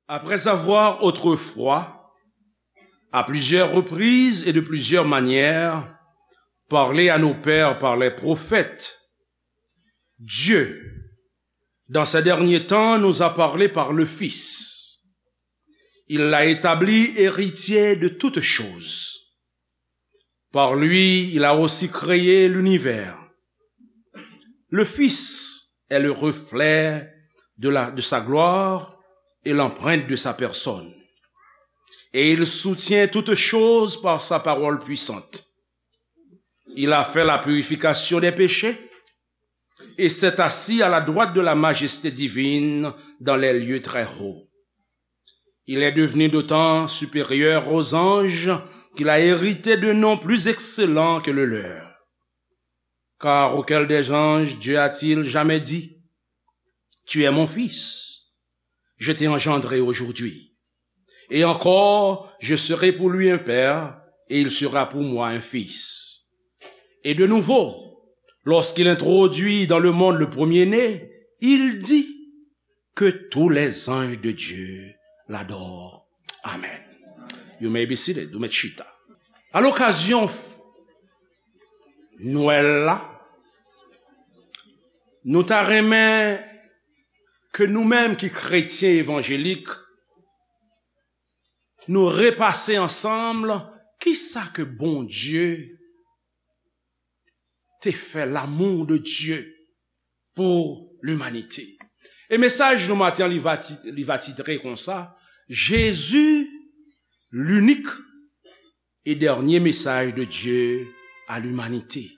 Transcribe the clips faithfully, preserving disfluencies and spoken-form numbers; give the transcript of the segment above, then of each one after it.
Après avoir autrefois, à plusieurs reprises et de plusieurs manières, parlé à nos pères par les prophètes, Dieu, dans ces derniers temps, nous a parlé par le Fils. Il l'a établi héritier de toutes choses. Par lui, il a aussi créé l'univers. Le Fils est le reflet de la, de sa gloire et l'empreinte de sa personne. Et il soutient toutes choses par sa parole puissante. Il a fait la purification des péchés et s'est assis à la droite de la majesté divine dans les lieux très hauts. Il est devenu d'autant supérieur aux anges qu'il a hérité d'un nom plus excellent que le leur. Car auquel des anges Dieu a-t-il jamais dit, tu es mon fils, je t'ai engendré aujourd'hui. Et encore, je serai pour lui un père, et il sera pour moi un fils. Et de nouveau, lorsqu'il introduit dans le monde le premier-né, il dit, que tous les anges de Dieu l'adorent. Amen. You may be seated. Ou mèt chita. A lokazyon f-, Nwèl la, nou ta renmen ke nou menm ki kretyen evanjelik, nou repase ansanm kisa ke Bondye te fè, l'amour de Dieu pour l'humanité. E mesaj nou maten an, li va ti-, li va titre konsa, Jésus, l'unique et dernier message de Dieu à l'humanité.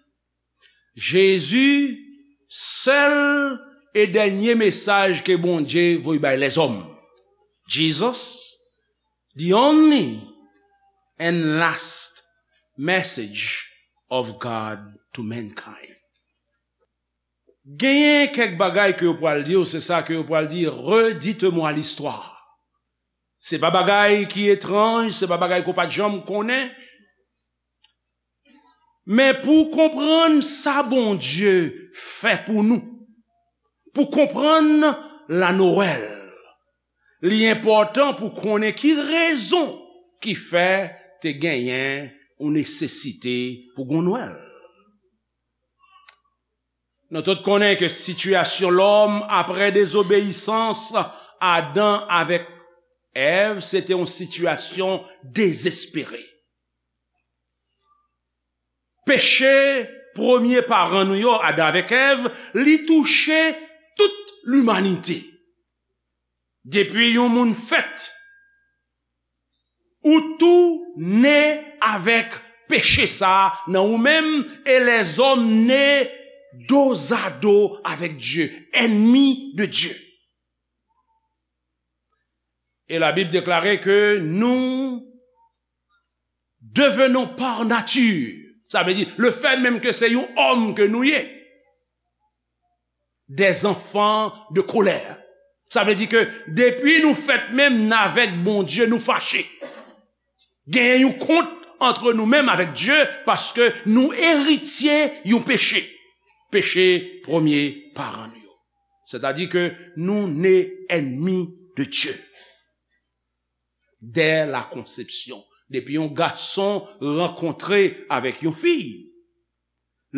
Jezi, sèl e dènye mesaj ke Bondye voye bay lèzòm. Jesus, the only and last message of God to mankind. Genyen kèk bagay ke yo pral di w, se sa ke yo pral di, redites-moi l'histoire. Se pa bagay ki etranj, se pa bagay ke w pa t janm konnen. Men pou w konprann sa Bondye fè pou nou, pou w konprann la Noël, li enpòtan pou w konnen ki rezon ki fè te genyen yon nesesite pou gon Nwèl. Nou tout konnen ke sitiyasyon lòm apre dezobeyisans Adan avèk Èv, se te yon sitiyasyon dezespere. Peche premye paran nou yo, Adan avèk Èv, li touche tout limanite. Depi yon moun fèt, ou tou ne avèk peche sa a nan ou menm, e lèzòm ne dozado avèk Dye, ènmi de Dye. E Labib deklare ke nou devenons par nature, sa vle di, le fèt menm ke se yon òm ke nou ye, des enfants de colère. Sa vle di ke depi nou fèt menm, n avèk Bondye, nou fache. Genyen yon kont antre nou menm avèk Dye, paske nou eritye yon peche. Peche premye paran nou yo. Sètadi ke nou ne ènmi de Dye. Dès la conception. Depi yon gason rankontre avèk yon fi,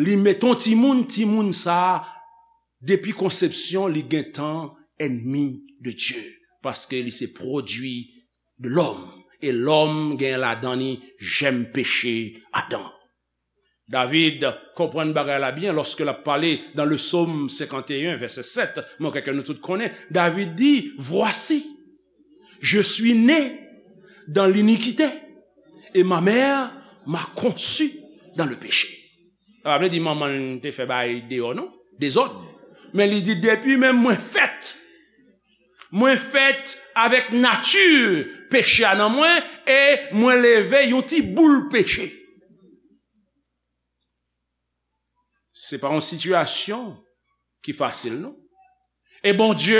li met yon timoun, timoun sa a, depi konsepsyon, li gentan ènmi de Dye. Paske li se pwodui de lòm. E lòm gen ladan li jèm peche Adan. David konprann bagay la byen lòske l ap pale dans le psaume cinquante et un, verset sept, mwen kwè ke nou tout konnen, David di, voici, je suis né dans l'iniquité, et ma mère m'a conçu dans le péché. Sa pa vle di manman l te fè bagay deyò, non, dezòd. Men li di, depi menm mwen fèt, mwen fèt avèk nati peche a nan mwen, e mwen leve yon ti boul peche. Se pa yon sitiyasyon ki fasil, non. E Bondye,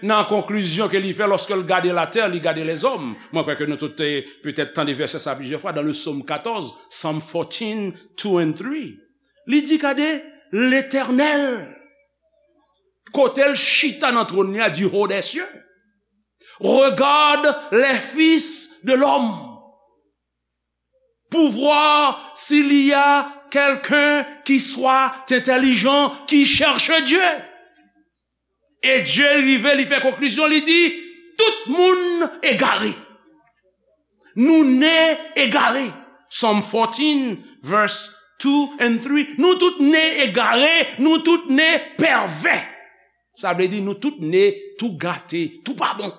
nan konklizyon ke li fè lòske l gade latè, li gade lèzòm. Mwen kwè ke nou tout te petèt tande vèsè sa plizyè fwa dans le psaume quatorze, Psalm fourteen, two and three. Li di, gade, Letènèl, kote l chita nan twòn li a, du haut des cieux. Regarde les fils de l'homme pour voir s'il y a quelqu'un qui soit intelligent, qui cherche Dieu. E Dye rive, li fè konklizyon, li di, tout moun egare. Nou ne egare. Psalm fourteen, verse two and three. Nou tout ne egare, nou tout ne pèvè. Sa vle di nou tout ne tou gate, tou pa bon.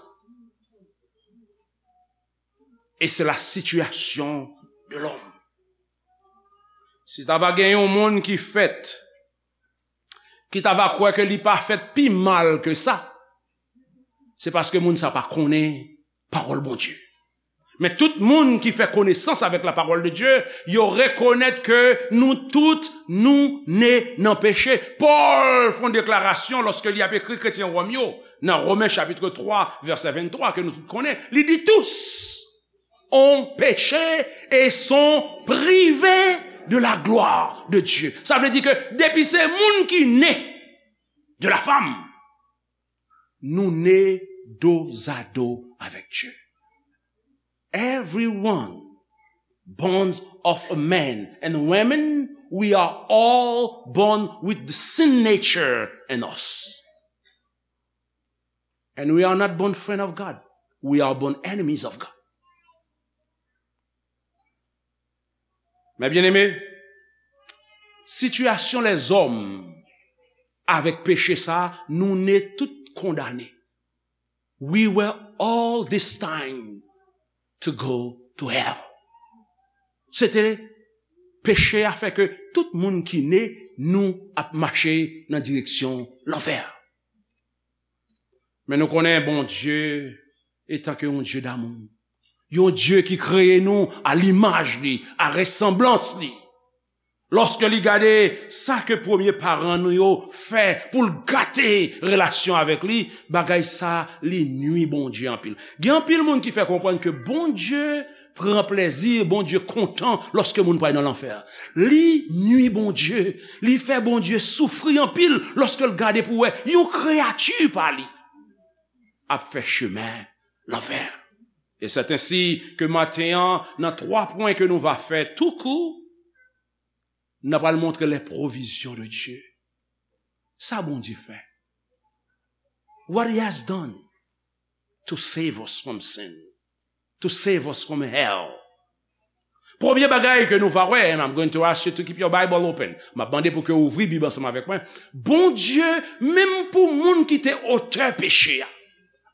Et c'est la situation de l'homme. Si ta va gen yon moun ki fèt, ki ta va kwè ke li pa fèt pi mal ke sa, se paske moun sa pa konnen pawòl Bondye. Men tout moun ki fè konesans avèk la parole de Dieu, yo rekonèt ke nou tout, nou ne nan peche. Pòl fè yon deklarasyon lòske li ap ekri kretyen Wòm yo, nan Romen chapit twa, vèsè venntwa, ke nou tout konnen, li di, tous ont péché et sont privés de la gloire de Dieu. Sa vle di ke depi se moun ki ne de la femme, nou ne dozado avèk Dye. Everyone born of a man and women, we are all born with the sin nature in us. And we are not born friend of God. We are born enemies of God. Mes bien-aimés, sitiyasyon lèzòm avèk peche sa, nou ne tout kondane. We were all destined to go to hell. Se te peche a fè ke tout moun ki ne, nou ap mache nan direksyon lanfè. Men nou konnen Bondye, etan ke yon Dye damou, yon Dye ki kreye nou a limaj li, a resanblans li, lòske li gade sa ke premye paran nou yo fè pou l gate relasyon avèk li, bagay sa li nwi Bondye anpil. Gen anpil moun ki fè konprann ke Bondye pran plezi, Bondye kontan lòske moun pral nan lanfè. Li nwi Bondye, li fè Bondye soufri anpil lòske l gade pou wè yon kreyati pa li ap fè chemen lanfè. E c'est ainsi que maten an, nan twa pwen ke nou va fè tou kou, n ap pral montre les provisions de Dieu. Sa Bondye fè. What he has done to save us from sin, to save us from hell. Premye bagay ke nou va wè, and I'm going to ask you to keep your Bible open. M ap mande pou ke w ouvri Bib ansanm avèk mwen. Bondye, menm pou moun ki te otè peche a,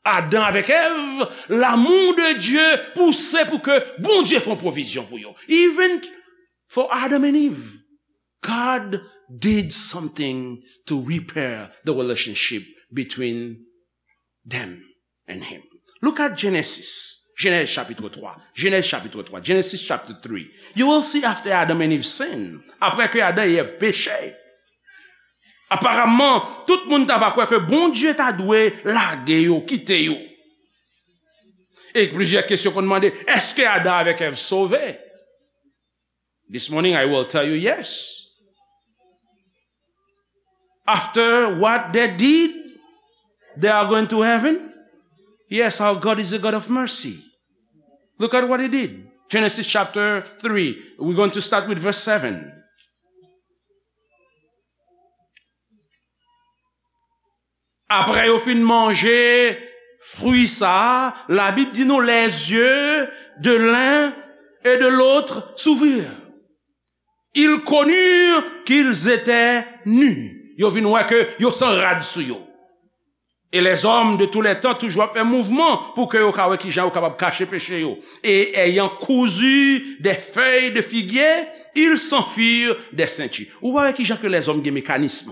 Adan avèk Èv, l'amour de Dieu pouse pou ke Bondye fè yon pwovizyon pou yo. Even for Adam and Eve, God did something to repair the relationship between them and him. Look at Genesis. Genèse chapitre twa. Genèse chapitre twa. Genesis chapter three. You will see after Adam and Eve sin. Apre ke Adan e Èv peche, aparamman, tout moun ta va kwè ke Bondye ta dwe lage yo, kite yo. E plizyè kesyon konn mande, èske Adan avèk Èv sove? This morning I will tell you yes. After what they did, they are going to heaven? Yes, our God is a God of mercy. Look at what he did. Genesis chapter three. We're going to start with verse seven. Apre yo fin manje fwi sa a, Labib di nou, les yeux de l'un et de l'autre s'ouvrirent. Ils connurent qu'ils étaient nus. Yo vin wè ke yo san rad sou yo. Et les hommes de tous les temps toujou ap fè mouvman pou ke yo ka wè kijan yo kapab kache peche yo. Et ayant cousu des feuilles de figuier, ils s'en firent des ceintures. Ou pa wè kijan ke lèzòm gen mekanism.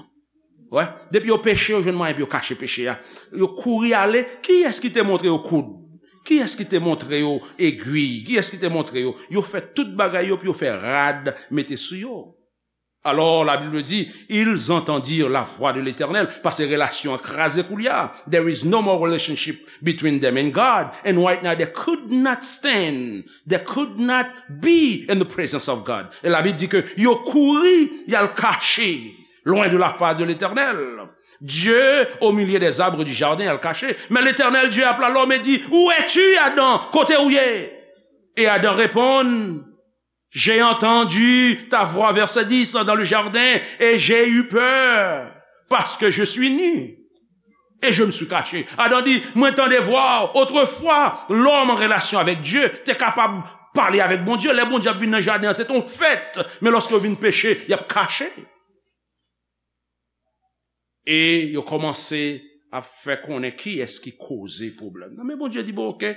Wè, depi yo peche, yo jwenn mwayen pou yo kache peche a. Yo kouri ale, kiyès ki te montre yo koud? Kiyès ki te montre yo egwi? Kiyès ki te montre yo? Yo fè tout bagay yo pou yo fè rad mete sou yo. Alors, la Bible dit, ils entendirent la voix de l'Éternel, paske relasyon an kraze koulye a. There is no more relationship between them and God. And right now, they could not stand. They could not be in the presence of God. E Labib di ke yo kouri, y al kache loin de la face de l'Éternel. Dieu au milieu des arbres du jardin, al kache. Mais l'Éternel Dieu appela l'homme et dit, où es-tu, Adam? Kote ou ye? Et Adam répond, j'ai entendu ta voix, verset dix, dans le jardin, et j'ai eu peur, parce que je suis nu. Et je me suis caché. Adan di, mwen tande vwa w. Otrefwa, lòm an relasyon avèk Dye te kapab pale avèk Bondye. Lè Bondye ap vin nan jaden an, se te yon fèt. Men lòske yo vin peche, y ap kache. E yo kòmanse ap fè konnen kiyès ki koze pwoblèm nan. Men Bondye di, bon, oke,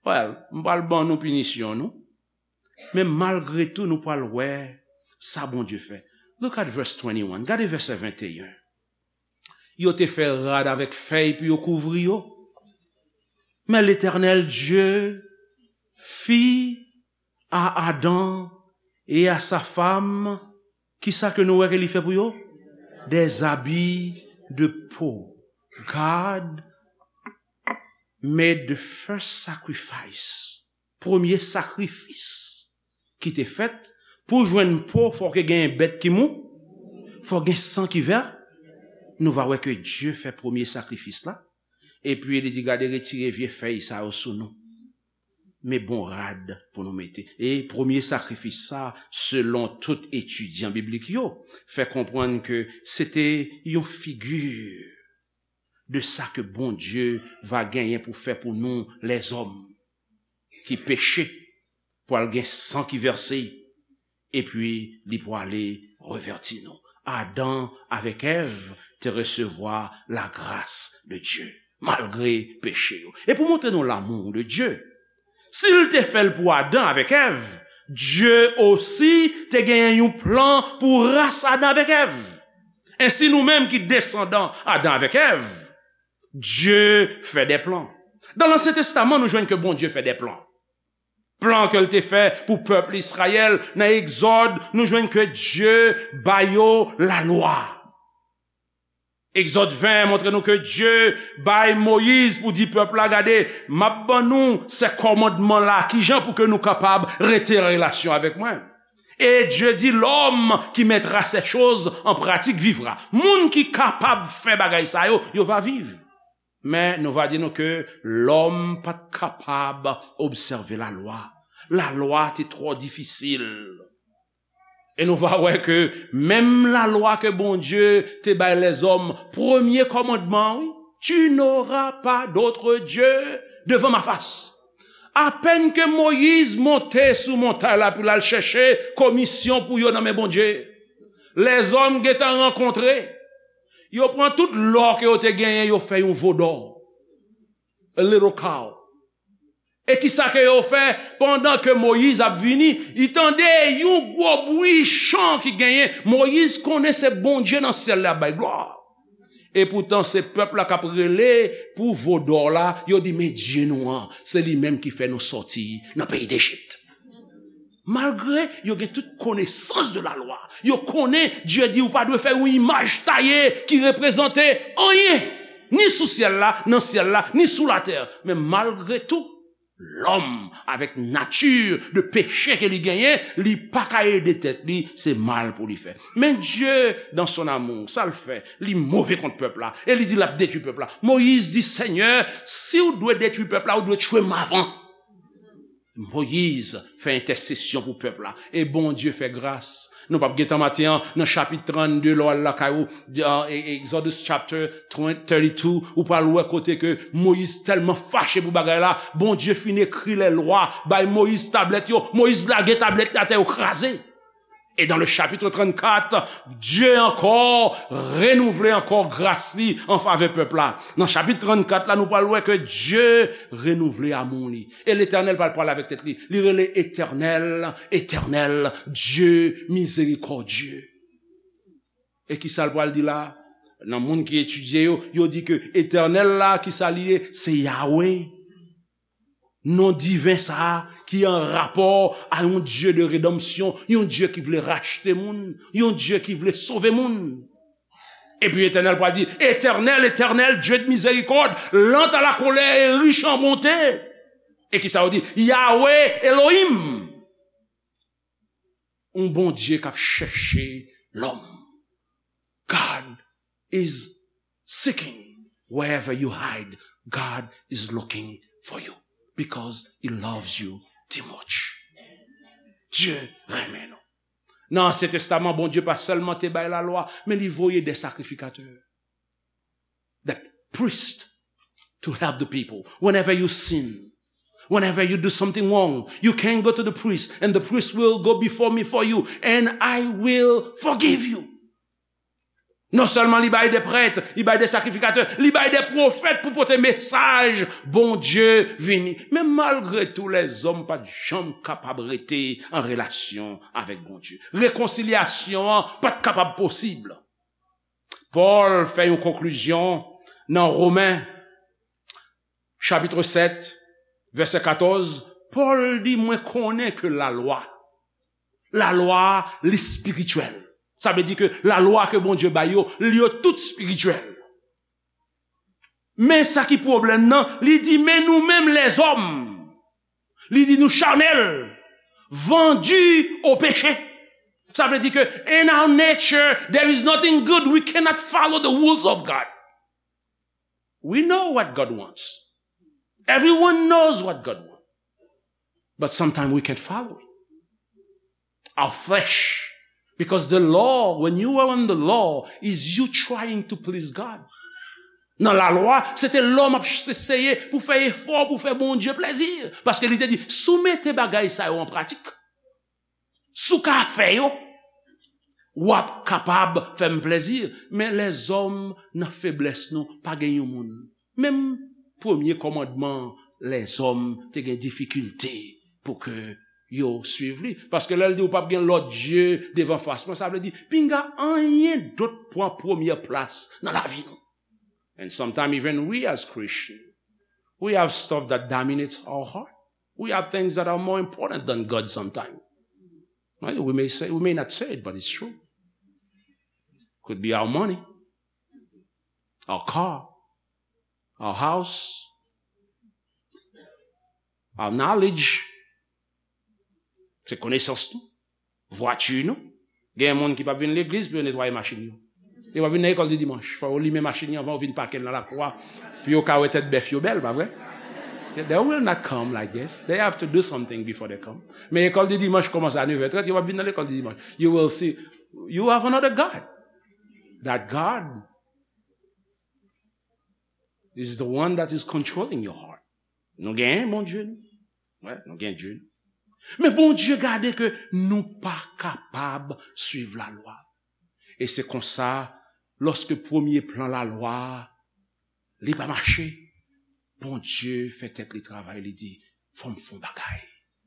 well, m pral ban nou pinisyon nou. Men malgre tou, nou pral wè sa Bondye fè. Look at verse twenty-one. Gade vèsè venteyen. Yo te fè rad avèk fèy pou yo kouvri yo. Men Letènèl Dye fit à Adam et à sa femme, kisa ke nou wè ke li fè pou yo? Des habits de peau. God made the first sacrifice. Premye sakrifis ki te fèt pou jwenn po, fò ke gen bèt ki mou, fò gen san ki vè. Nou va wè ke Dye fè premye sakrifis la. Epi li di, gade, retire vye fèy sa yo sou nou. Men bon rad pou nou mete. E premye sakrifis sa, selon tout etidyan biblik yo, fè konprann ke se te yon figi de sa ke Bondye va genyen pou fè pou nou, lèzòm ki peche, pral gen san ki vèse, epi li pwale revèti nou. Adan avèk Èv te resevwa lagras de Dye, malgre peche yo. E pou montre nou lamou de Dye, si l te fè l pou Adan avèk Èv, Dye osi te genyen yon plan pou ras Adan avèk Èv. Ensi, nou menm ki desandan Adan avèk Èv, Dye fè de plan. Dan Lansyen Testaman, nou jwenn ke Bondye fè de plan. Plan ke l te fè pou pèp Izrayèl, nan Egzòd, nou jwenn ke Dye ba yo lalwa. Egzòd ven montre nou ke Dye bay Moyiz pou di pèp la, gade, m ap ban nou se kòmandman la, kijan pou ke nou kapab rete an relasyon avèk mwen. Et Dieu dit, l'homme qui mettra ces choses en pratique vivra. Moun ki kapab fè bagay sa yo, yo va viv. Men nou va di nou ke lòm pa t kapab obsève lalwa. Lalwa te twò difisil. E nou va wè ke menm lalwa ke Bondye te bay lèzòm, premye kòmandman, wi, tu n'auras pas d'autre Dieu devant ma face. Apèn ke Moyiz monte sou montay la pou l al chèche komisyon pou yo nan men Bondye, lèzòm gentan rankontre. Yo pran tout lò ke yo te genyen, yo fè yon vodò. A little cow. E kisa ke yo fè? Pandan ke Moyiz ap vini, li tande yon gwo bri chan ki genyen. Moyiz konnen se Bondye nan syèl la ap bay glwa. Epoutan, se pèp la k ap rele pou vodò la. Yo di, men Dye nou an, se li menm ki fè nou sòti nan peyi Dejip. Malgre yo gen tout konesans de lalwa, yo konnen Dye di ou pa dwe fè yon imaj taye ki reprezante anyen, ni sou syèl la, nan syèl la, ni sou latè. Men malgre tou, lòm, avèk nati de peche ke li genyen, li pa ka ede tèt li, se mal pou li fè. Men Dye, dans son amour, sa l fè, li move kont pèp la, e li di l ap detwi pèp la. Moyiz di, Senyè, si w dwe detwi pèp la, ou dwe tchwe m avan. Moyiz fè entèsesyon pou pèp la. E Bondye fè gras. Nou p ap gen tan maten an, nan chapit trannde, lè w al lakay ou, de, e, Exodus chapter thirty-two, ou pral wè kote ke Moyiz tèlman fache pou bagay la, Bondye fin ekri lè lwa, bay Moyiz tablèt yo, Moyiz lage tablèt yo atè, yo kraze. E dans le chapitre trannkat, Dye ankò renouvle ankò gras li an favè pèp la. Nan chapit trannkat la, nou pral wè ke Dye renouvle amou li. E Letènèl pral pale avèk tèt li. Li rele Etènèl, Etènèl, Dye mizerikòdye. E kisa l pral di la? Nan moun ki etidye yo, yo di ke Etènèl la, kisa li ye? Se Yawe. Non diven sa a ki an rapò a yon Dye de redanmsyon, yon Dye ki vle rachte moun, yon Dye ki vle sove moun. Epi Etènèl pral di, Etènèl, Etènèl, Dye de mizerikòd, lan a la kolè e rich an bonte. E kisa yo di? Yawe Elohim. Yon Bondye k ap chèche lòm. God is seeking. Wherever you hide, God is looking for you because He loves you too much. Dye renmen nou. Nan Ansyen Testaman, Bondye pa sèlman te bay lalwa, men li voye de sakrifikatè, the priest, to help the people. Whenever you sin, whenever you do something wrong, you can go to the priest, and the priest will go before me for you, and I will forgive you. Non sèlman li bay de prèt, li bay de sakrifikatè, li bay de pwofèt pou pote mesaj Bondye vini. Men malgre tou, lèzòm pa t janm kapab rete an relasyon avèk Bondye. Rekonsilyasyon an pa t kapab posib. Pòl fè yon konklizyon nan Women chapit sèt, vèsè katòz, Pòl di, mwen konnen ke lalwa, lalwa a, li espirityèl. Sa vle di ke lalwa ke Bondye bay yo, li yo tout espirityèl. Men sa ki pwoblèm nan, li di, men nou menm lèzòm, li di nou chanèl, vendu au péché. Sa vle di ke in our nature, there is nothing good. We cannot follow the rules of God. We know what God wants. Everyone knows what God wants. But sometimes we can't follow it. Our flesh. Because the law, when you are on the law, is you trying to please God. Nan lalwa, se te lòm ap eseye pou fè efò, pou fè Bondye plezi. Paske li te di, si w mete bagay sa yo an pratik, si w ka fè yo, w ap kapab fè m plezi. Men lèzòm, nan feblès nou, pa gen yon moun. Menm premye kòmandman, lèzòm te gen difikilte pou ke yo swiv li. Paske lè l di ou p ap gen lòt dye devan fas mwen, sa vle di, pinga anyen dòt pran premyè plas nan lavi nou. And sometimes even we as Christians, we have stuff that dominates our heart. We have things that are more important than God sometimes. Right? We may say, we may not say it, but it's true. Could be our money, our car, our house, our knowledge. Se konesans nou, vwati nou. Gen moun ki p ap vin legliz pou yo netwaye machin yo. Yo p ap vin nan lekòl de dimanch. Fò yo limen machin yo anvan yo vin pake l nan lakou a, pou yo ka wè tèt bèf yo bèl, pa vre? They will not come like this. They have to do something before they come. Men lekòl de dimanch kòmanse a nèf è trant, yo p ap vin nan lekòl de dimanch. You will see, you have another God. That God is the one that is controlling your heart. Nou genyen Bondye nou. Wè, nou gen Dye nou. Men Bondye gade ke nou pa kapab swiv lalwa. E se konsa, lòske premye plan lalwa a, li pa mache, Bondye fè tèt li travay, li di, fò m fè yon bagay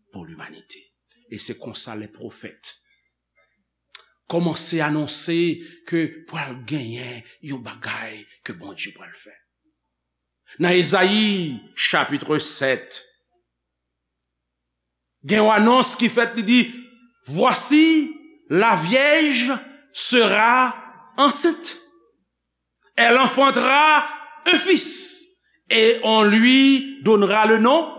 pou limanite. E se konsa lè pwofèt kòmanse anonse ke pral genyen yon bagay ke Bondye pral fè. Nan Ezayi chapit sèt, gen yon anons ki fèt, li di, voici, la vierge sera enceinte. Elle enfantera un fils et on lui donnera le nom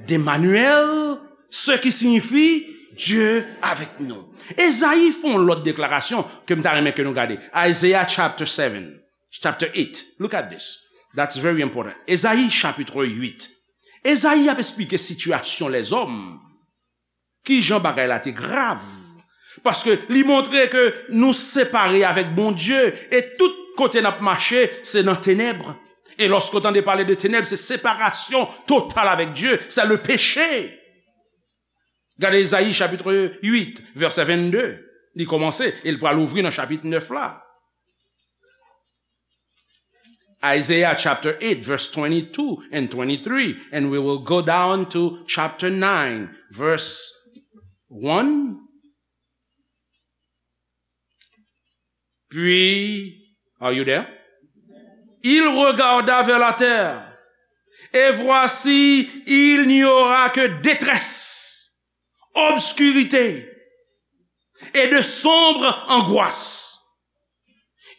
d'Emmanuel, ce qui signifie Dieu avec nous. Ezayi fè yon lòt deklarasyon ke m ta renmen ke nou gade. Isaiah chapter seven, chapter eight. Look at this. That's very important. Ezayi chapit uit. Ezayi ap esplike sitiyasyon lèzòm. Kijan bagay la te grav? Paske li montre ke nou separe avèk Bondye e tout kote n ap mache, se nan tenèb. E lòske w tande pale de tenèb, se separasyon total avèk Dye, c'est le péché. Gade Ezayi chapit uit, vèsè vennde. Li kòmanse e l pral ouvri nan chapit nèf la. Isaiah chapter eight, verse twenty-two and twenty-three, and we will go down to chapter nine, verse one. Puis, are you there? Il regarda vers la terre, et voici, il n'y aura que détresse, obscurité et de sombres angoisses.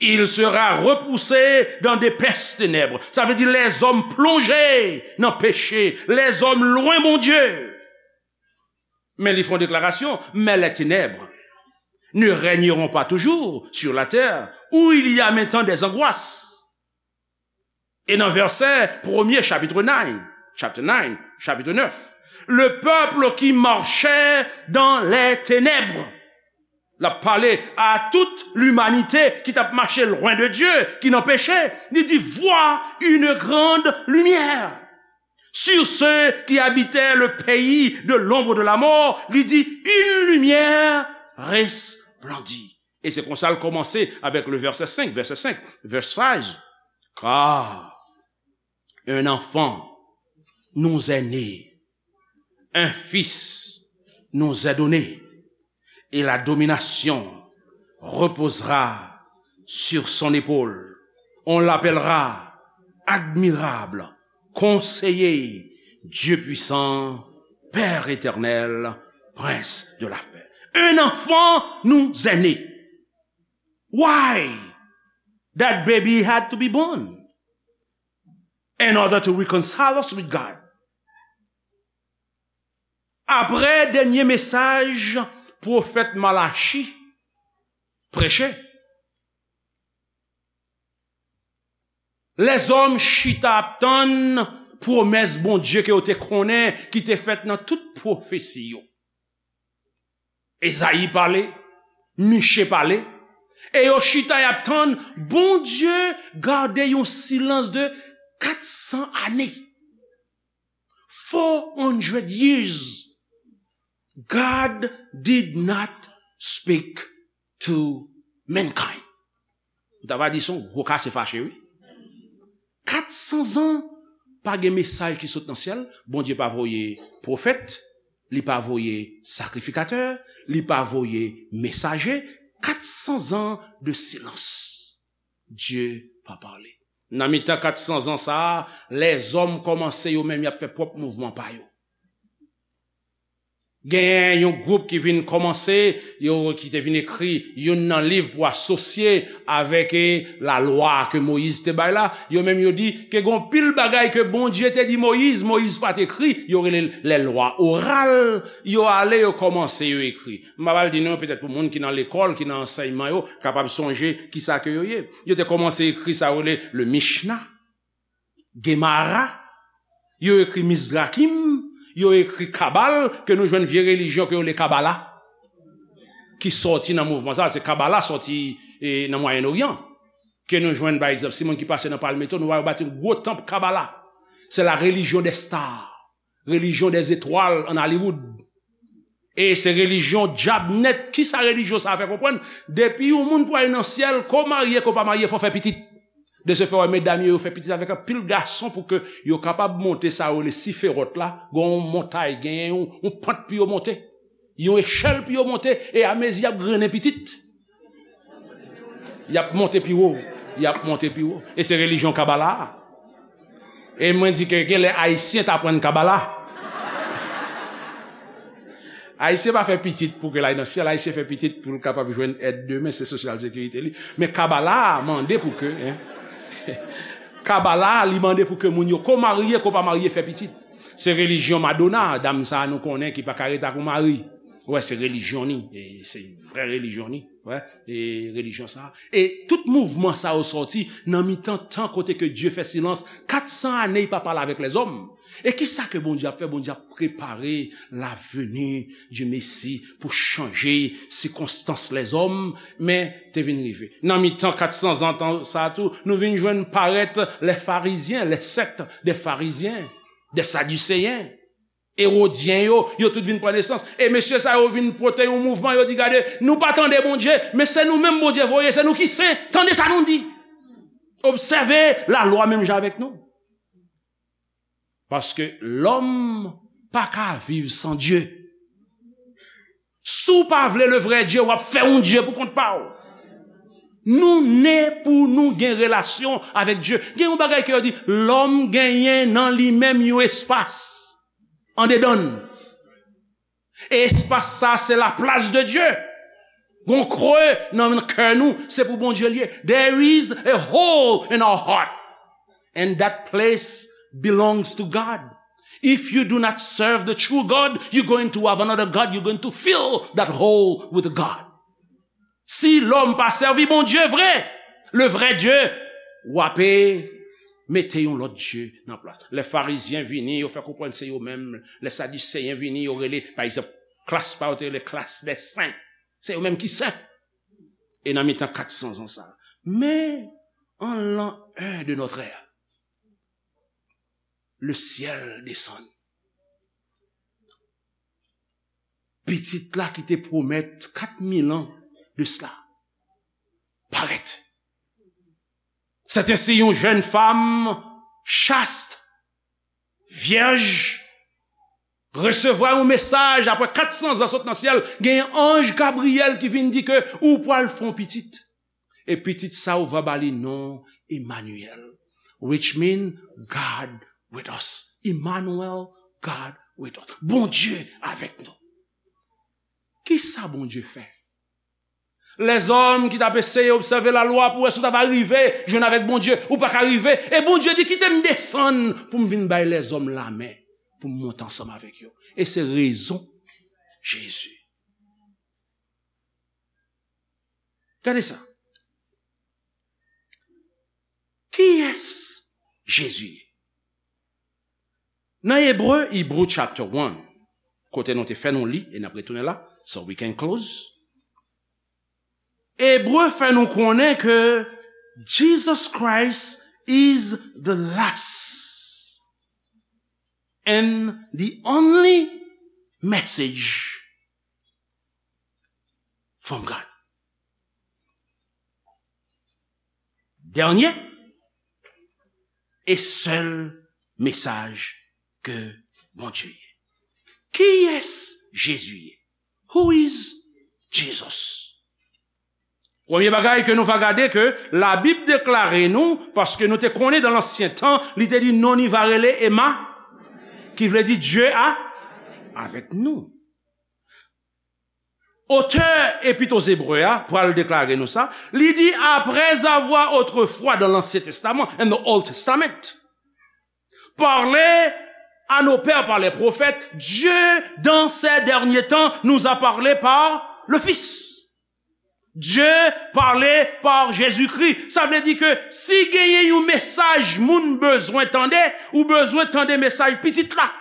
Il sera repoussé dans d'épaisses ténèbres. Sa vle di lèzòm plonje nan peche, lèzòm lwen Bondye. Men li fè yon deklarasyon, mais les ténèbres ne régneront pas toujours sur la terre, où il y a maintenant des angoisses. E nan vèsè premye chapit nine, chapter nine, chapit nèf, le peuple qui marchait dans les ténèbres. L ap pale a tout limanite ki t ap mache lwen de Dye, ki nan peche. Li di, voit une grande lumière. Sur ceux qui habitaient le pays de l'ombre de la mort, li di, une lumière resplendit. E se konsa l kòmanse avèk le vèsè senk, vèsè senk, verse five. Car un enfant nous est né, un fils nous est donné, et la domination reposera sur son épaule. On l'appellera admirable, conseiller, Dieu puissant, Père éternel, prince de la paix. Un enfant nous est né. Why that baby had to be born? In order to reconcile us with God. Apre dènye mesaj pwofèt Malachi preche, lèzòm chita ap tann pwomès Bondye ke yo te konnen, ki te fèt nan tout pwofesi yo. Ezayi pale, Miche pale, e yo chita y ap tann. Bondye gade yon silans de kat san ane. Four hundred years, God did not speak to mankind. Ou ta va di se yon gwo kase fache, wi. Kat san zan, pa gen mesaj ki sot nan syèl. Bondye pa voye pwofèt, li pa voye sakrifikatè, li pa voye mesaje. Kat san zan de silans. Dye pa pale. Nan mitan kat san zan sa a, lèzòm kòmanse yo menm y ap fè pwòp mouvman pa yo. Genyen yon gwoup ki vin kòmanse, yo, ki te vin ekri youn nan liv pou asosye avèk, eh, lalwa ke Moyiz te bay la. Yo menm yo di ke gen yon pil bagay ke Bondye te di Moyiz, Moyiz pa t ekri, yo rele l les lois orales. Yo ale, yo kòmanse, yo ekri. M pa pral di non, petèt pou moun ki nan lekòl, ki nan ansèyman yo, kapab sonje kisa ke yo ye. Yo te kòmanse ekri sa yo rele le Mishnah. Gemara, yo ekri Mizrakim, yo ekri Kabal, ke nou jwenn vye relijyon ke yo rele Kabala, ki sòti nan mouvman sa, se Kabala sòti, eh, nan Mwayen Oryan. Ke nou jwenn, pa egzanp, si moun ki pase nan Palmetto, nou va wè yo bati yon gwo tanp Kabala. C'est la religion des stars, religion des étoiles en Hollywood. E se relijyon dyab nèt. Kisa relijyon sa a fè konprann? Depi yon moun pou al nan syèl, ke w marye, ke w pa marye, fò w fè pitit. De ce fait, w wè medam yo, yo fè pitit avèk anpil gason pou ke yo kapab monte sa yo rele Siferòt la. Gen yon montay, gen yon, yon pant pou yo monte. Yon echèl pou yo monte, e amezi y ap grennen pitit. Y ap monte pi wo, y ap monte pi wo. E se relijyon Kabala a. E mwen di ke genlè Ayisyen t aprann Kabala. Ayisyen pa fè pitit pou ke l al nan syèl, Ayisyen fè pitit pou l kapab jwenn èd demen, se sosyal sekirite li. Men Kabala a mande pou ke, en. Kabala a, li mande pou ke moun yo, ke w marye, ke w pa marye, fè pitit. Se relijyon Madonna, dam sa a nou konnen ki pa ka ret ak yon mari. Wè, se relijyon ni, e se vrè relijyon ni. Wè, e relijyon sa a. E tout mouvman sa yo sòti nan mitan tan kote ke Dye fè silans, kat san ane li pa pale avèk lèzòm. E kisa ke Bondye ap fè? Bondye ap prepare la venue du Messie pou chanje sikonstans lèzòm, men te vin rive. Nan mitan kat san zan tan sa a tou, nou vin jwenn parèt les pharisiens, les sectes des pharisiens, des sadducéens. Erodyen yo, yo tout vin pran nesans. E mesye sa yo vin pote yon mouvman, yo di, gade, nou pa tande Bondye, men se nou menm Bondye voye, se nou ki sen, tande sa nou di. Obsève lalwa menm jan avèk nou. Paske lòm pa ka viv san Dye. Si w pa vle le vrè Dye, w ap fè yon dye pou kont pa w. Nou ne pou nou gen relasyon avèk Dye. Gen yon bagay ke yo di, lòm genyen nan li menm yon espas andedan l. E espas sa, se laplas de Dye. Gon kre nan kè nou, se pou Bondye l ye. There is a hole in our heart. And that place belongs to God. If you do not serve the true God, you're going to have another God. You're going to fill that hole with God. Si lòm pa sèvi Bondye vre, le vrai Dieu, w ape mete yon lòt dye nan plas. Lè Farizyen vini, yo fè konprann se yo menm. Lè Sadiseyen vini, yo rele, pa egzanp, klas pa yo te rele klas dè sen. Se yo menm ki sen. E nan mitan kat san zan sa. Men, an l'an un de notre ère, le ciel descend. Pitit la ki te pwomèt kat mil an de sila parèt. C'est ainsi yon jèn fanm chaste, vyèj, resevwa yon mesaj apre kat san zan sot nan syèl, gen anj Gabriyèl ki vin di ke ou pral fè yon pitit. E pitit sa ou va ba li non Emmanuel, which mean God with us. Emmanuel, God with us. Bondye avèk nou. Kisa Bondye fè? Lèzòm ki t ap eseye obsève lalwa pou wè si w ta va rive jwenn avèk Bondye, ou pa ka rive. E Bondye di, "Kite m desann pou m vin bay lèzòm lamen, pou m monte ansanm avèk yo." E se rezon Jezi. Gade sa. Kiyès Jezi ye? Nan Ebre, Hebrew chapter one, kote nou te fè nou li, e n ap retounen la, so we can close. Ebre fè nou konnen ke Jesus Christ is the last and the only message from God. Dènye e sèl mesaj ke Bondye ye. Kiyès Jezi ye? Who is Jesus? Premye bagay ke nou va gade ke Labib deklare nou, paske nou te konnen dan lansyen tan, li te di non li va rele Ema, ki vle di Dye a, avèk nou. Otè Epit o Zebre a pral deklare nou sa, li di, après avoir autrefois dans l'Ancien Testament, in the Old Testament, parlé à nos pères par les prophètes, Dieu, dans ces derniers temps, nous a parlé par le Fils. Dieu parlé par Jésus-Christ. Sa vle di ke si genyen yon mesaj moun bezwen tande, ou bezwen tande mesaj pitit la.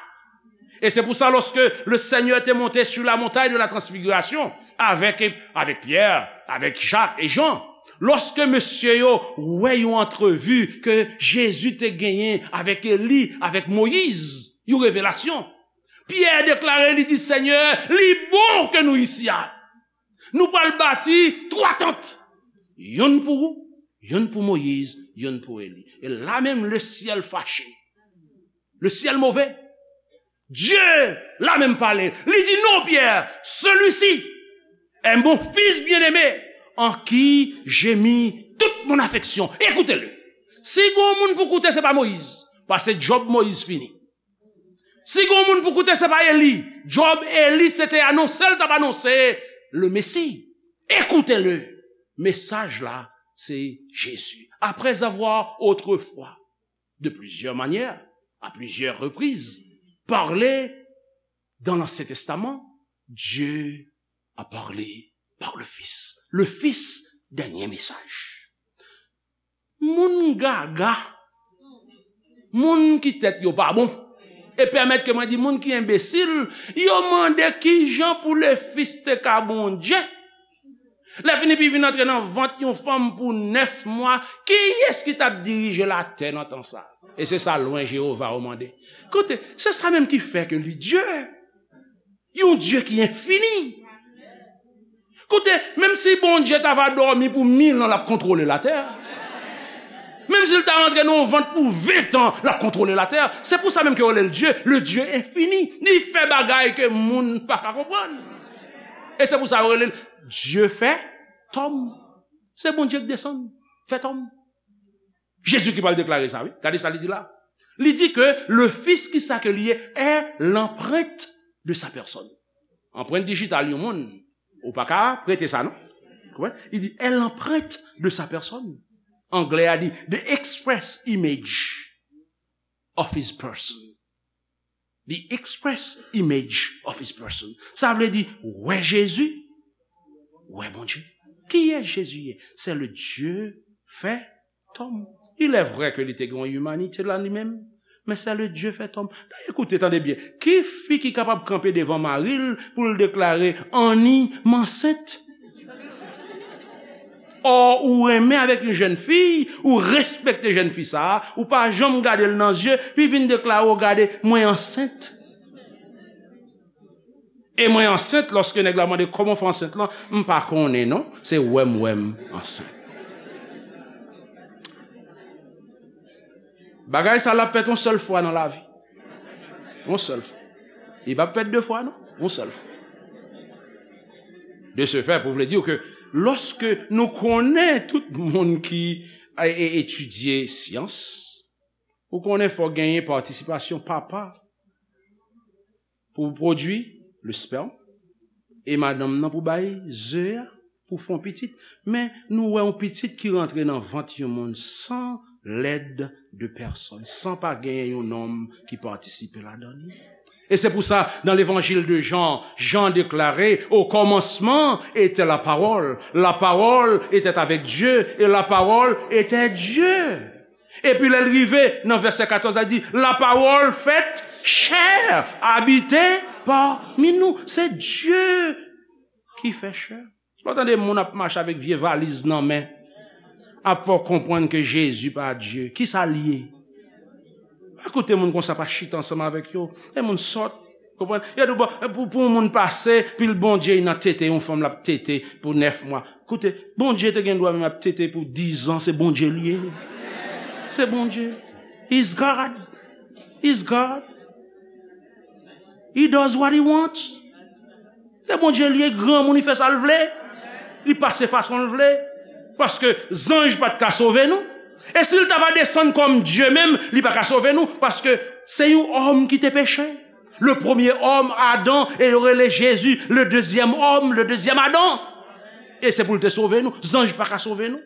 Et c'est pour ça, lorsque le Seigneur était monté sur la montagne de la transfiguration avec, avec Pierre, avec Jacques et Jean, lorsque mesye yo wè yon antrevi ke Jezi te genyen avèk Eli, avèk Moyiz, yon revelasyon, Pyè deklare, li di, Senyè, li bon ke nou isi a. Nou pral bati twa tant. Youn pou ou, youn pou Moyiz, youn pou Eli. E la menm, le ciel fâché. Le ciel mauvais. Dieu la menm pale. Li di, non, Pierre, celui-ci est mon fils bien-aimé, en qui j'ai mis toute mon affection. Écoutez-le. Si gon moun pou koute, se pa Moyiz. Pase Job, Moyiz fini. Si gon moun pou koute, se pa Eli. Job, Eli, se te anonse l t ap anonse le Messie. Écoutez-le. Mesaj la, se Jezi. Après avoir autrefois, de plusieurs manières, à plusieurs reprises, parlé dans l'Ancien Testament, Dieu a parlé par le Fils. Le Fils, dènye mesaj. Moun gaga, moun ki tèt yo pa bon, e pèmèt ke mwen di moun ki enbesil, yo mande kijan pou le Fils te ka Bondye. Lè fini, pi vin antre nan vant yon fanm pou nèf mwa, kiyès ki t ap dirije latè nan tan sa? E se sa lwen Jewova yo mande. Koute, se sa menm ki fè ke li Dye. Yon Dye ki enfini. Koute, menm si Bondye ta va dòmi pou mil an, l ap kontwole latè. Menm si l ta rantre nan yon vant pou ven tan, l ap kontwole latè. Se pou sa menm ke yo rele l Dye, le Dieu infini. Li fè bagay ke moun pa ka konprann. E se pou sa yo rele l Dye fè tòm. Se Bondye k desann, fè tòm. Jezi ki pral deklare sa, wi. Gade sa li di la. Li di ke le Fils, ki sa ke li ye, est l'empreinte de sa personne. Anprent dijital yon moun, ou pa ka prete sa, non? Konprann? Li di, est l'empreinte de sa personne. Anglè a di, the express image of his person. The express image of his person. Sa vle di, wè Jezi, wè Bondye. Kiyès Jezi ye? Se le Dieu fait homme. Il est vrai ke li te gen yon imanite la li menm, men c'est le Dieu fait homme. Dayè, koute, tande byen. Ki fi ki kapab kanpe devan mari l pou l deklare, Annie, m ansent? Ò, ou renmen avèk yon jèn fi, ou respekte jèn fi sa a, ou pa janm gade l nan zye, pi vin deklare, w gade, mwen ansent. E mwen ansent, lòske nèg la mande kòman w fè ansent lan, m pa konnen non, se wè m wè m ansent. Bagay sa l ap fèt yon sèl fwa nan lavi. Yon sèl fwa. Li p ap fèt de fwa non, yon sèl fwa. De ce fait, pou vle di ke lòske nou konnen tout moun ki e, e, etidye syans, ou konnen fò genyen patisipasyon papa pou pwodui le sperme e madanm nan pou bay ze a pou fè yon pitit. Men nou wè yon pitit ki rantre nan vant yon moun san lèd de pèsòn, san pa genyen yon nonm ki patisipe ladan li. E se pou sa, dans l'évangile de Jean, Jean déclarait, au commencement était la parole, la parole était avec Dieu, et la parole était Dieu. Epi lè l rive nan vèsè katòz la, di, la parole faite chair, habité parmi nous. Se Dye ki fè chè. Lè w tande moun ap mache avèk vye valiz nan men, ap fè w konprann ke Jezi pa Dye. Kisa l ye? Pa koute moun konsa, pa chita ansanm avèk yo. E moun sòt. Konprann? Yo di, bon, pou, pou yon moun pase, pi l Bondye nan tete, yon fanm l ap tete pou nèf mwa. Koute, Bondye te gen dwa menm ap tete pou diz an, se Bondye l ye. Se Bondye. He's God. He's God. He does what he wants. Se Bondye l ye, granmoun, li fè sa l vle. Li pase fason l vle. Paske zanj pa t ka sove nou. E si l ta va desann kòm Dye menm, li pa ka sove nou. Paske se yon òm ki te peche. Le premier homme, Adam, e yo rele Jezi, le deuxième homme, le deuxième Adam. E se pou l te sove nou. Zanj pa ka sove nou.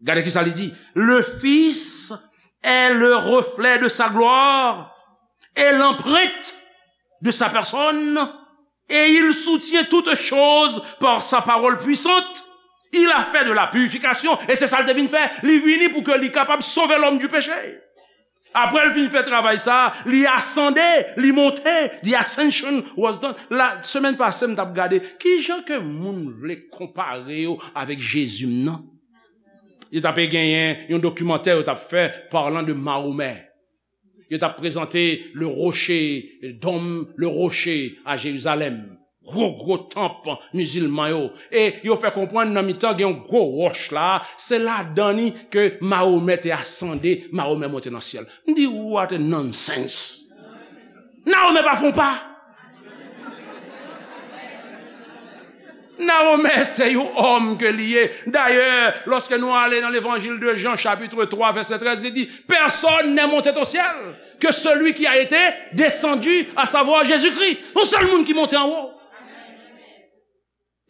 Gade ki sa li di. Le Fils est le reflet de sa gloire et l'empreinte de sa personne, et il soutient toutes choses par sa parole puissante. Il a fait de la purification, e se sa l te vin fè. Li vini pou ke li kapab sove lòm di peche. Apre l fin fè travay sa, li asande, li monte. The ascension was done. La semèn pase, m t ap gade kijan ke moun vle konpare yo avèk Jezi m nan. Yo t ap genyen yon dokimantè yo t ap fè, parlant de Mahomè. Yo t ap prezante le rocher, dôme, le rocher a Jérusalem. Gwo, gwo tanp mizilman yo. E yo fè konprann nan mitan gen yon gwo wòch la, se ladan li ke Mahomè te asande, Mahomè monte nan syèl. M di, what a nonsense! Mahomè pa fè yon pa. Mahomè se yon òm ke li ye. Dayè, lòske nou ale nan Levanjil de Jan, chapitre twa, vèsè trèz, li di, personne n'est monté au ciel que celui qui a été descendu, à savoir Jésus-Christ. Yon sèl moun ki monte anwo.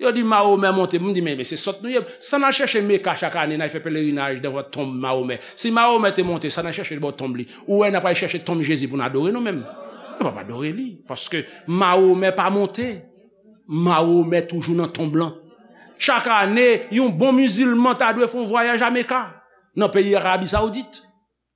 Yo di Mahomè monte. M di, men, men se sòt nou ye. Sa n al chèche Meka chak ane, n al fè pelerinaj devan tonm Mahomè. Si Mahomè te monte, sa n al chèche bò tonm li? Ou wè n ap al chèche tonm Jezi pou n adore nou menm? Nou p ap adore li. Paske Mahomè pa monte. Mahomè toujou nan tonm lan. Chak ane, yon bon mizilman ta dwe fè yon vwayaj a Meka, nan peyi Arabi Sawoudit.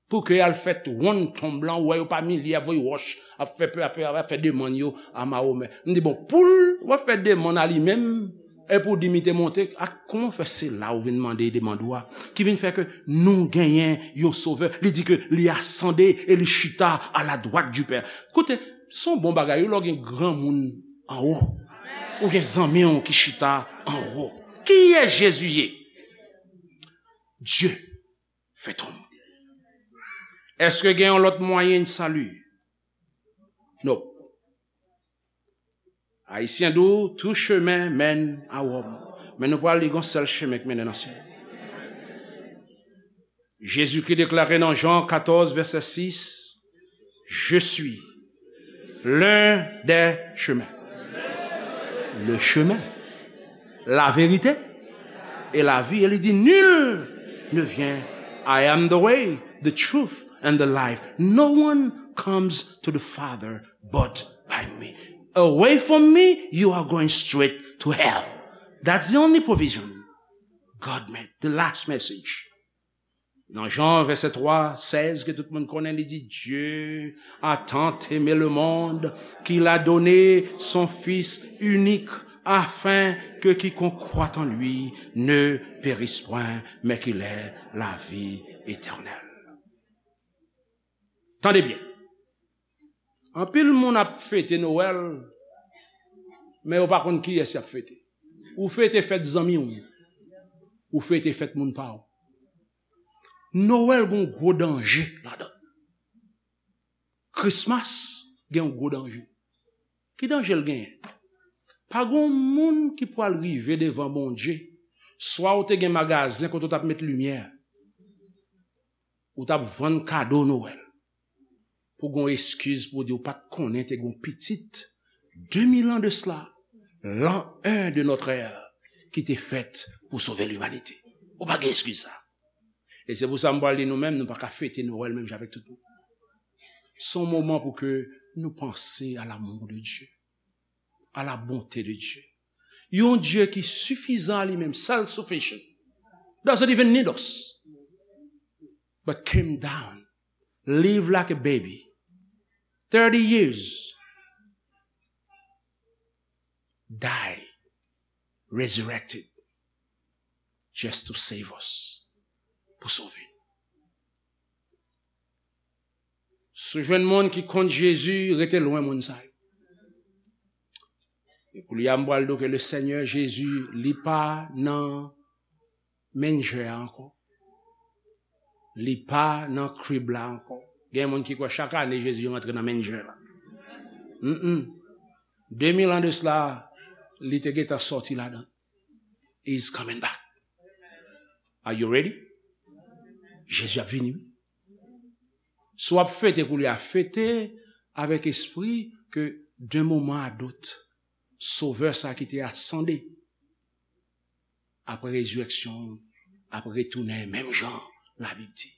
Pou ke y al fè wonn tonm lan, ou wè yo pa milye ap voye wòch, ap fè, ap fè, ap fè demann yo a Mahomè. M di, bon, pou l, w ap fè demann a li menm, epi w di m li te monte, a, kòman w fè se la ou vin mande demann ou a, ki vin fè ke nou genyen yon Sovè, li di ke li asande e li chita à la droite du Père. Koute, se yon bon bagay, wi, lè w gen granmoun anwo, ou gen zanmi w ki chita anwo. Kiyès Jezi ye? Dye. Fè tonm. Èske gen yon lòt mwayen de sali? Non. Ayisyen di w, tout chemin mène à Rome. Men nou pral li gon sèl chemen k mennen nan syèl. Jezikri deklare nan Jan katòz, vèsè sis, Je suis l'un des chemins, le chemin, la vérité et la vie. E li di, nul ne vient. I am the way, the truth, and the life. No one comes to the Father but by me. Away from me, you are going straight to hell. That's the only provision God made. The last message. Nan Jan vèsè twa, sèz, ke tout moun konnen, li di, Dieu a tant aimé le monde qu'il a donné son Fils unique, afin que quiconque croit en lui ne périsse point, mais qu'il ait la vie éternelle. Tande byen. Anpil moun ap fete Nwèl, men yo pa konn kiyès y ap fete. Ou fete fèt zanmi w, ou fete fèt moun pa w. Nwèl gen yon gwo danje ladan l. Christmas gen yon gwo danje. Ki danje l genyen? Pa gen yon moun ki pwal rive devan Bondye, swa ou te gen magazen kote ou t ap met limyè, ou t ap vann kado Nwèl, pou gen yon eskiz pou w di ou pa t konnen te gen yon pitit, de mil an de sela, l'an un de notre ère, ki te fèt pou sove limanite. Ou pa gen eskiz sa. E se pou sa m pral di nou menm, nou pa ka fete Nwèl menm jan avèk tout moun. Se yon moman pou ke nou panse à l'amour de Dieu, à la bonté de Dieu. Yon Dye ki sifizan a li menm, self-sufficient, doesn't even need us, but came down, live like a baby, thirty years, die, resurrected, just to save us, pou sove nou. Si w jwenn moun ki kont Jezi, rete lwen moun sa yo. E koulye a, m pral di w ke le Seigneur Jezi, li pa nan menjè a ankò. Li pa nan krib la ankò. Gen moun ki kwè chak ane Jezi rantre nan menjè la. Mm-mm. De mil an de sela, li te gentan sòti ladan. He's coming back. Are you ready? Jezi ap vini. Si w ap fete koulye a, fete avèk espri ke d'un moment à d'autres, Sovè sa ki te asande apre rezirèksyon ap retounen menm jan Labib di.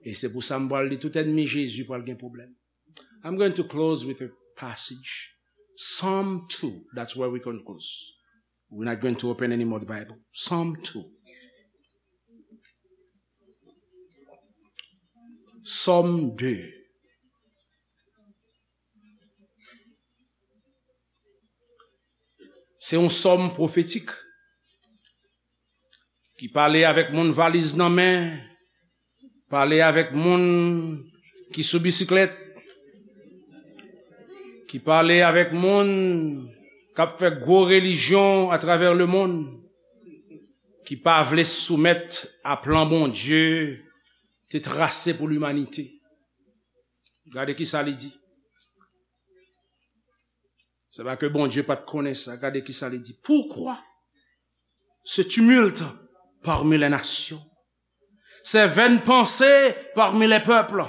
E se pou sa m pral di tout ènmi Jezi pral gen pwoblèm. I'm going to close with a passage. Psalm two, that's where we can close. We're not going to open any more the Bible. Psalm two. Sòm de. Se yon sòm pwofetik ki pale avèk moun valiz nan men, pale avèk moun ki sou bisiklèt, ki pale avèk moun k ap fè gwo relijyon atravè lemonn, ki pa vle soumèt a plan Bondye te trase pou limanite. Gade ki sa li di. Se pa ke Bondye pa t konnen sa. Gade ki sa li di. Pourquoi ce tumulte parmi les nations, ces vaines pensées parmi les peuples?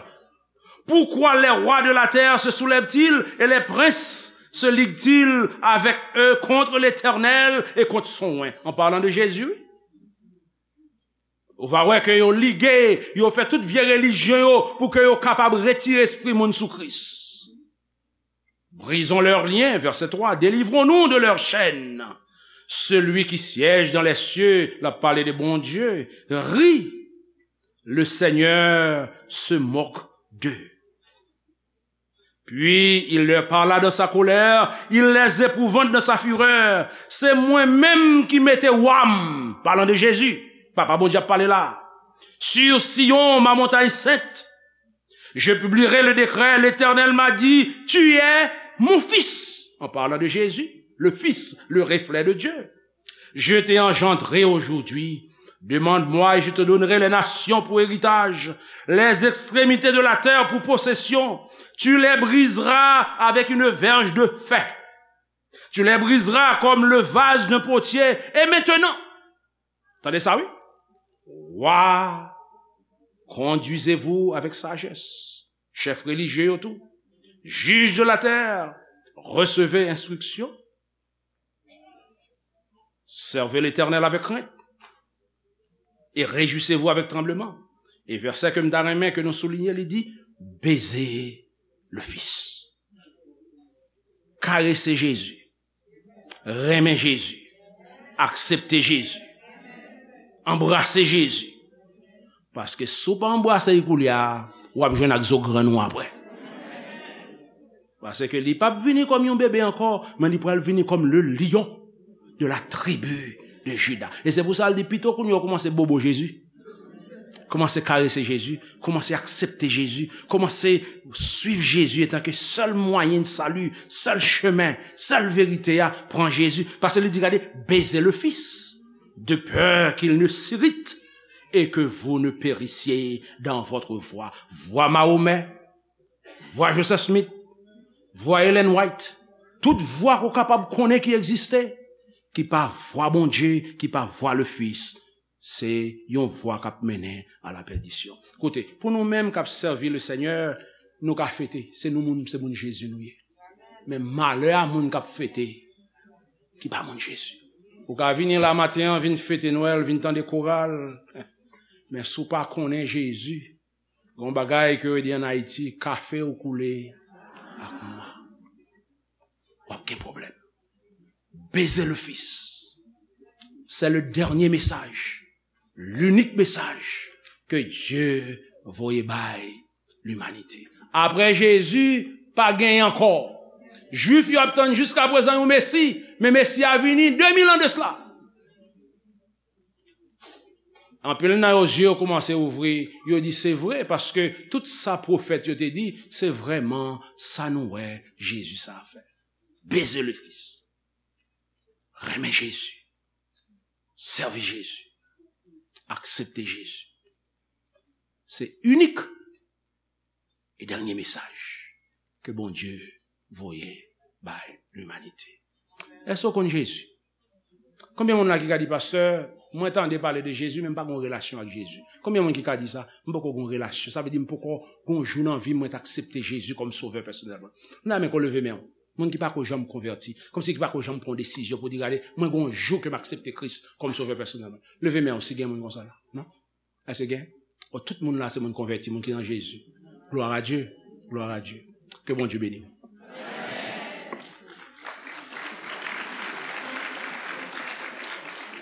Pourquoi les rois de la terre se soulèvent-ils et les princes se liguent-ils avec eux contre l'Éternel et contre son oint? En parlant de Jésus, wi. Ou va wè ke yo lige, yo fè tout vye relijyon yo pou ke yo kapab retire espri moun sou Kris. Brisons leurs liens, verset trois, délivrons-nous de leurs chaînes. Celui qui siège dans les cieux, l ap pale de Bondye, rit. Le Seigneur se moque d'eux. Puis il leur parla dans sa colère, il les épouvante dans sa fureur. Se mwen menm ki mete wa m, parlant de Jésus, Papa Bondye ap pale la, sur Sion, ma montagne sainte. Je publierai le décret, l'Éternel m'a dit, tu es mon fils, en parlant de Jésus, le fils, le reflet de Dieu. Je t'ai engendré aujourd'hui. Demande-moi et je te donnerai les nations pour héritage, les extrémités de la terre pour possession. Tu les briseras avec une verge de fer. Tu les briseras comme le vase d'un potier. Et maintenant, tande sa, wi. Wa, conduisez-vous avec sagesse. Chèf relijye yo tou. Juges de la terre, recevez instruction. Servez l'Éternel avec crainte et réjouissez-vous avec tremblement. E vèsè ke m ta renmen ke nou soulinye, li di, beze le Fils. Karese Jezi. Renmen Jezi. Aksepte Jezi. Anbrase Jezi. Paske si w pa anbrase l koulye a, w ap jwenn ak zo grenn ou apre. Paske li p ap vini kòm yon bebe ankò, men li pral vini kòm le lion de la tribu de Juda. E se pou sa l di pito kounye a w kòmanse bobo Jezi. Kòmanse karese Jezi, kòmanse aksepte Jezi, kòmanse suiv Jezi antanke sèl mwayen de sali, sèl chemen, sèl verite a, pran Jezi. Paske li di, gade, beze le Fis, de peur qu'il ne s'irrite et que vous ne périssiez dans votre voie. Vwa Mahomet, vwa Joseph Smith, vwa Ellen White, tout vwa ke w kapab konnen ki egziste, ki pa vwa Bondye, ki pa vwa le Fis, se yon vwa k ap mennen a la pèdisyon. Koute, pou nou menm k ap sèvi le Senyè, nou ka fete, se nou moun, se moun Jezi nou ye. Men malè a moun k ap fete, ki pa moun Jezi. Ou ka vini la maten an, vin fete Nwèl, vin tande koral, men si w pa konnen Jezi, gen yon bagay ke yo di ann Ayiti, kafe ou koule ak mwa, w ap gen pwoblèm. Beze le Fis. Se le dènye mesaj, linik mesaj ke Dye voye bay limanite. Apre Jezi, pa gen ankò. Jwif yo ap tann jiska prezan yon Mesi, men Mesi a vini de mil an de sila. Anpil nan yo zye yo kòmanse ouvri, yo di se vre, paske tout sa pwofèt yo te di, se vrèman sa nou wè Jezi sa fè. Beze le Fis. Renmen Jezi. Sèvi Jezi. Aksepte Jezi. Se inik e dènye mesaj ke Bondye voye bay limanite. Èske w konn Jezi? Konbyen moun la ki ka di, pastè, mwen tande pale de Jezi, men m pa gen relasyon ak Jezi? Konbyen moun ki ka di sa? M poko gen relasyon. Sa vle di m poko gen jou nan vi m mwen t aksepte Jezi kòm sovè pèsonèl mwen. M ta renmen ke w leve men w. Moun ki pako janm konvèti, kòmsi ki pako janm pran desizyon pou di, gade, mwen gen yon jou ke m aksepte Kris kòm sovè pèsonèl mwen. Leve men w si gen moun konsa la. Non? Èske gen? O, tout moun la se moun konvèti, moun ki nan Jezi. Gloire à Dieu. Gloire à Dieu. Ke Bondye beni w.